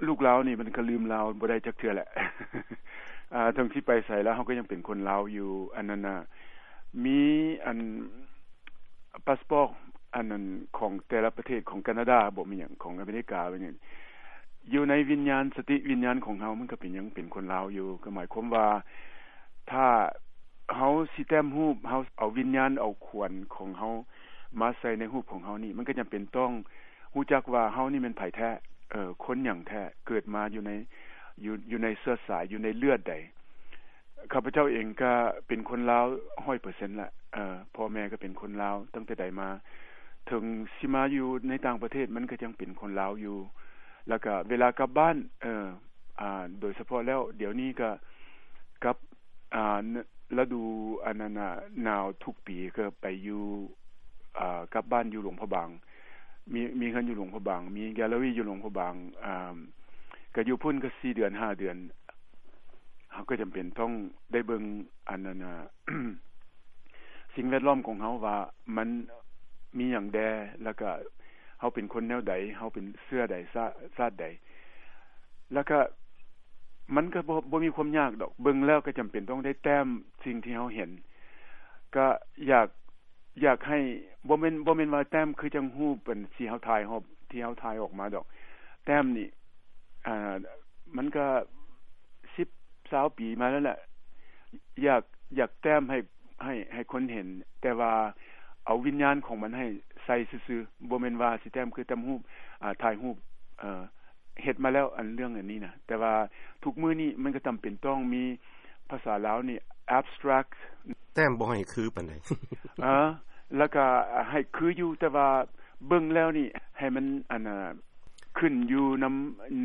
ລູກລາວນີ້ມັນກໍລືມລາວບໍ່ໄດ້ຈັກເທື່ອແຫຼະ. ເຖິງຊິໄປໃສແລ້ວ ເຮົາກໍຍັງເປັນຄົນລາວຢູ່. ອັນນັ້ນນະ ມີອັນ ພາສປອດ ອັນນັ້ນ ຂອງແຕ່ລະປະເທດ ຂອງການາດາບໍ ແມ່ນຫຍັງ ຂອງອາເມລິກາ ແມ່ນຫຍັງ ຢູ່ໃນວິນຍານ ສະຕິວິນຍານຂອງເຮົາ ມັນກໍເປັນ ຍັງເປັນຄົນລາວຢູ່. ກໍໝາຍຄວາມວ່າ ຖ້າເຮົາຊິແຕ້ມຮູບ ເຮົາເອົາວິນຍານ ເອົາຂວັນຂອງເຮົາມາໃສ່ໃນຮູບຂອງເຮົານີ້ ມັນກໍຈຳເປັນຕ້ອງຮູ້ຈັກວ່າເຮົານີ້ແມ່ນໃຜແທ້, ເອີ ຄົນຫຍັງແທ້, ເກີດມາຢູ່ໃນ ຢູ່ ຢູ່ໃນເຊື້ອສາຍ ຢູ່ໃນເລືອດໃດ. ຂ້າພະເຈົ້າເອງກໍເປັນຄົນລາວຮ້ອຍເປີເຊັນລະ, ເອີ ພໍ່ແມ່ກໍເປັນຄົນລາວຕັ້ງແຕ່ໃດມາ. ເຖິງຊິມາຢູ່ໃນຕ່າງປະເທດ ມັນກໍຍັງເປັນຄົນລາວຢູ່. ແລ້ວກໍເວລາກັບບ້ານ ເອີ ອາ ໂດຍສະເພາະແລ້ວ ດຽວນີ້ກໍກັບ ອາ ລະດູອັນນັ້ນນະ ໜາວທຸກປີກໍໄປຢູ່ ອາ ກັບບ້ານຢູ່ຫຼວງພະບາງ, ມີ ມີເຮືອນຢູ່ຫຼວງພະບາງ, ມີແກລເລີຣີຢູ່ຫຼວງພະບາງ, ອາ ກໍຢູ່ພຸ້ນກໍສີ່ເດືອນ ຫ້າເດືອນ. ເຮົາກໍຈຳເປັນຕ້ອງໄດ້ເບິ່ງອັນນັ້ນນະ ສິ່ງແວດລ້ອມຂອງເຮົາວ່າມັນມີຫຍັງແດ່ ແລ້ວກໍເຮົາເປັນຄົນແນວໃດ, ເຮົາເປັນເຊື້ອໃດ ຊາ ຊາດໃດ. ແລ້ວກໍມັນກໍບໍ່ ບໍ່ມີຄວາມຍາກດອກ, ເບິ່ງແລ້ວກໍຈຳເປັນຕ້ອງໄດ້ແຕ້ມສິ່ງທີ່ເຮົາເຫັນ. ກໍຢາກ ຢາກໃຫ້ ບໍ່ແມ່ນ ບໍ່ແມ່ນວ່າແຕ້ມຄືຈັ່ງຮູບອັນທີ່ເຮົາຖ່າຍ ຮອບທີ່ເຮົາຖ່າຍອອກມາດອກ. ແຕ້ມນີ້ ອ່າ ມັນກໍສິບ ຊາວປີມາແລ້ວແຫຼະ. ຢາກ ຢາກແຕ້ມໃຫ້ ໃຫ້ ໃຫ້ຄົນເຫັນ, ແຕ່ວ່າເອົາວິນຍານຂອງມັນໃຫ້ໃສ່ຊື່ໆ, ບໍ່ແມ່ນວ່າຊິແຕ້ມຄືແຕ້ມຮູບ ອ່າ ຖ່າຍຮູບ ເອີ ເຮັດມາແລ້ວ ອັນເລື່ອງອັນນີ້ນະ. ແຕ່ວ່າທຸກມື້ນີ້ມັນກໍຈຳເປັນຕ້ອງມີ ພາສາລາວນີ້ abstract ແຕ້ມບໍ່ໃຫ້ຄືປານໃດ. ເອີ ແລ້ວກໍໃຫ້ຄືຢູ່ ແຕ່ວ່າເບິ່ງແລ້ວນີ້ໃຫ້ມັນ ອັນນ່າ ຂຶ້ນຢູ່ນຳ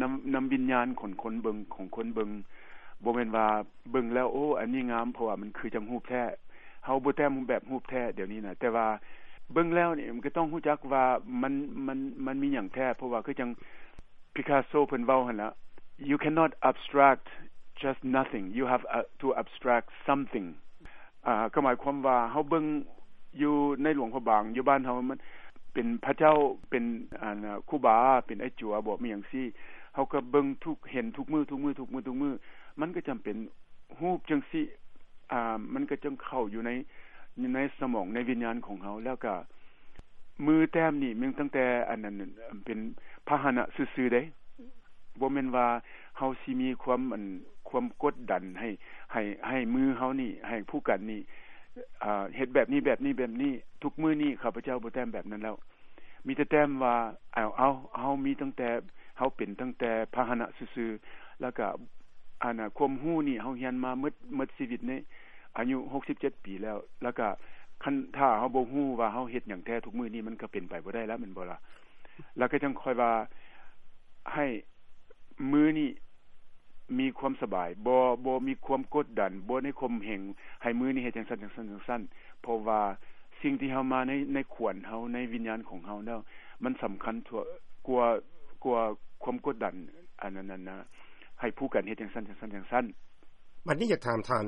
ນຳ ນຳວິນຍານຂອງຄົນເບິ່ງ ຂອງຄົນເບິ່ງ. ບໍ່ແມ່ນວ່າເບິ່ງແລ້ວ ໂອ້ ອັນນີ້ງາມ ເພາະວ່າມັນຄືຈັ່ງຮູບແທ້. ເຮົາບໍ່ແຕ້ມແບບຮູບແທ້ດຽວນີ້ນະ, ແຕ່ວ່າເບິ່ງແລ້ວນີ້ມັນກໍຕ້ອງຮູ້ຈັກວ່າມັນ ມັນ ມັນມີຫຍັງແທ້, ເພາະວ່າຄືຈັ່ງ Picasso ເພິ່ນເວົ້າຫັ້ນລະ, "You cannot abstract just nothing, you have, uh, to abstract something." ອ່າ ກໍໝາຍຄວາມວ່າເຮົາເບິ່ງຢູ່ໃນຫຼວງພະບາງ ຢູ່ບ້ານເຮົາ ມັນເປັນພະເຈົ້າ ເປັນ ອັນ ຄູບາ ເປັນໄອ້ຈົວບໍ ມີຫຍັງຊີ້, ເຮົາກໍເບິ່ງທຸກ ເຫັນທຸກມື້ ທຸກມື້ ທຸກມື້ ທຸກມື້ ມັນກໍຈຳເປັນ ຮູບຈັ່ງຊີ້ ອ່າ ມັນກໍຈັ່ງເຂົ້າຢູ່ໃນ ໃນສະໝອງ ໃນວິນຍານຂອງເຮົາ. ແລ້ວກະມືແຕ້ມນີ້ ແມ່ນຕັ້ງແຕ່ອັນນັ້ນ ເປັນພາຫະນະຊື່ໆເດ້, ບໍ່ແມ່ນວ່າເຮົາຊິມີຄວາມ ອັນ ຄວາມກົດດັນໃຫ້ ໃຫ້ ໃຫ້ມືເຮົານີ້ ໃຫ້ຜູ້ກັນນີ້ ອ່າ ເຮັດແບບນີ້ ແບບນີ້ ແບບນີ້. ທຸກມື້ນີ້ຂ້າພະເຈົ້າບໍ່ແຕ້ມແບບນັ້ນແລ້ວ. ມີແຕ່ແຕ້ມວ່າ ເອົາ ເອົາ ເຮົາມີຕັ້ງແຕ່ ເຮົາເປັນຕັ້ງແຕ່ພາຫະນະຊື່ໆ, ແລ້ວກະ ອັນນ່າ ຄວາມຮູ້ນີ້ເຮົາຮຽນມາໝົດ ໝົດຊີວິດນີ້ ອາຍຸຫົກສິບເຈັດປີແລ້ວ, ແລ້ວກະຄັນຖ້າເຮົາບໍ່ຮູ້ວ່າເຮົາເຮັດຫຍັງແທ້ທຸກມື້ນີ້ ມັນກະເປັນໄປບໍ່ໄດ້ລະ ແມ່ນບໍ່ລະ? ແລ້ວກະຈັ່ງຄ່ອຍວ່າ ໃຫ້ມື້ນີ້ ມີຄວາມສະບາຍ ບໍ່ ບໍ່ມີຄວາມກົດດັນ ບໍ່ໄດ້ຂົ່ມເຫງໃຫ້ມື້ນີ້ເຮັດຈັ່ງຊັ້ນ ຈັ່ງຊັ້ນ ຈັ່ງຊັ້ນ, ເພາະວ່າສິ່ງທີ່ເຮົາມາໃນ ໃນຂວັນເຮົາ ໃນວິນຍານຂອງເຮົາແລ້ວ ມັນສຳຄັນກວ່າ ກວ່າຄວາມກົດດັນ ອັນນັ້ນນະ ໃຫ້ຜູ້ກັນເຮັດຈັ່ງຊັ້ນ ຈັ່ງຊັ້ນ ຈັ່ງຊັ້ນ. ບັດນີ້ຢາກຖາມທ່ານ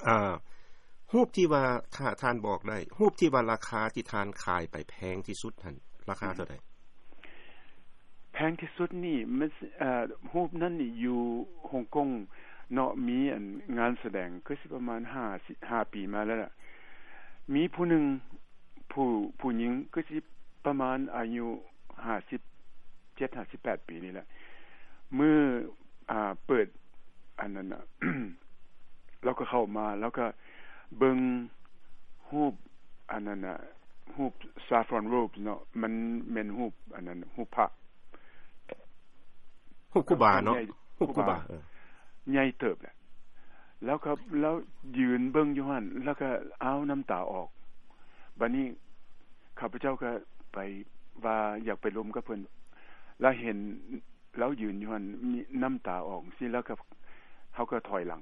ອ່າ ຮູບທີ່ວ່າ ຖ້າທ່ານບອກໄດ້ ຮູບທີ່ວ່າລາຄາທີ່ທ່ານຂາຍໄປແພງທີ່ສຸດຫັ້ນ ລາຄາເທົ່າໃດ? ແພງທີ່ສຸດນີ້ມັນ ເອີ ຮູບນັ້ນນີ້ຢູ່ຮົງກົງເນາະ, ມີອັນງານສະແດງ ຄືຊິປະມານຫ້າ ຫ້າປີມາແລ້ວລະ, ມີຜູ້ໜຶ່ງ ຜູ້ ຜູ້ຍິງ ຄືຊິປະມານອາຍຸຫ້າສິບເຈັດ ຫ້າສິບແປດປີນີ້ແຫຼະ, ມື້ ອ່າ ເປີດອັນນັ້ນນະ ລາວກໍເຂົ້າມາ ລາວກໍເບິ່ງຮູບອັນນັ້ນນະ ຮູບ saffron robes ເນາະ, ມັນແມ່ນຮູບອັນນັ້ນ ຮູບພະ ຮູບຄູບາເນາະ, ຮູບຄູບາ ເອີ ໃຫຍ່ເຕີບແຫຼະ. ແລ້ວກໍລາວຢືນເບິ່ງຢູ່ຫັ້ນ ແລ້ວກໍ ອ້າວ ນ້ຳຕາອອກ. ບາດນີ້ຂ້າພະເຈົ້າກໍໄປວ່າຢາກໄປລົມກັບເພິ່ນ ລະເຫັນ ລາວຢືນຢູ່ຫັ້ນ ມີນ້ຳຕາອອກຊີ້ ແລ້ວກໍ ເຮົາກໍຖອຍຫຼັງ.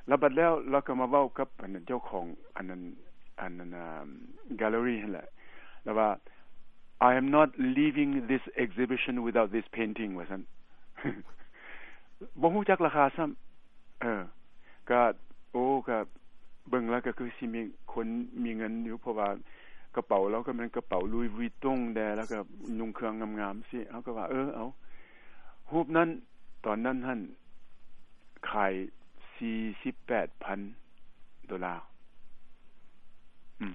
ແລ້ວບັດແລ້ວ ລາວກໍມາເວົ້າກັບອັນນັ້ນ ເຈົ້າຂອງອັນນັ້ນ ອັນນັ້ນ ອ່າ gallery ຫັ້ນແຫຼະ, ລາວວ່າ "I am not leaving this exhibition without this painting" ວ່າຊັ້ນ. ບໍ່ຮູ້ຈັກລາຄາຊ້ຳ. ເອີ ກະ ໂອ້ ກະເບິ່ງແລ້ວກະຄືຊິມີຄົນມີເງິນຢູ່ ເພາະວ່າກະເປົາລາວກະແມ່ນກະເປົາ Louis Vuitton ແດ່ ແລ້ວກະນຸ່ງເຄື່ອງງາມໆຊີ້. ເຮົາກະວ່າ ເອີ ເອົາ. ຮູບນັ້ນ ຕອນນັ້ນຫັ້ນ ຂາຍສີ່ສິບແປດພັນໂດລາ. ອືມ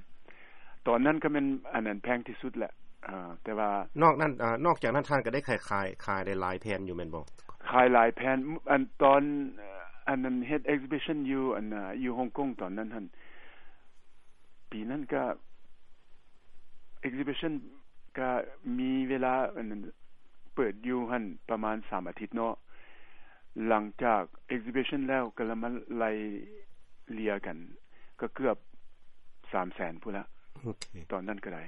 ຕອນນັ້ນກໍແມ່ນ ອັນນັ້ນແພງທີ່ສຸດແຫຼະ. ເອີ ແຕ່ວ່າ ນອກນັ້ນ ເອີ ນອກຈາກນັ້ນທ່ານກໍໄດ້ຂາຍ ຂາຍ ຂາຍໄດ້ຫຼາຍແຜ່ນຢູ່ແມ່ນບໍ່? ຂາຍຫຼາຍແຜ່ນ. ອັນຕອນ ອັນນັ້ນເຮັດ exhibition ຢູ່ ອັນ ຢູ່ຮົງກົງຕອນນັ້ນຫັ້ນ ປີນັ້ນກະ exhibition ກະມີເວລາ ອັນນັ້ນ ເປີດຢູ່ຫັ້ນປະມານສາມອາທິດເນາະ. ຫຼັງຈາກ exhibition ແລ້ວກໍລະມາໄລ່ເລ່ຍກັນ ກໍເກືອບສາມແສນພຸ້ນລະ. ໂອເຄ ຕອນນັ້ນກໍໄດ້.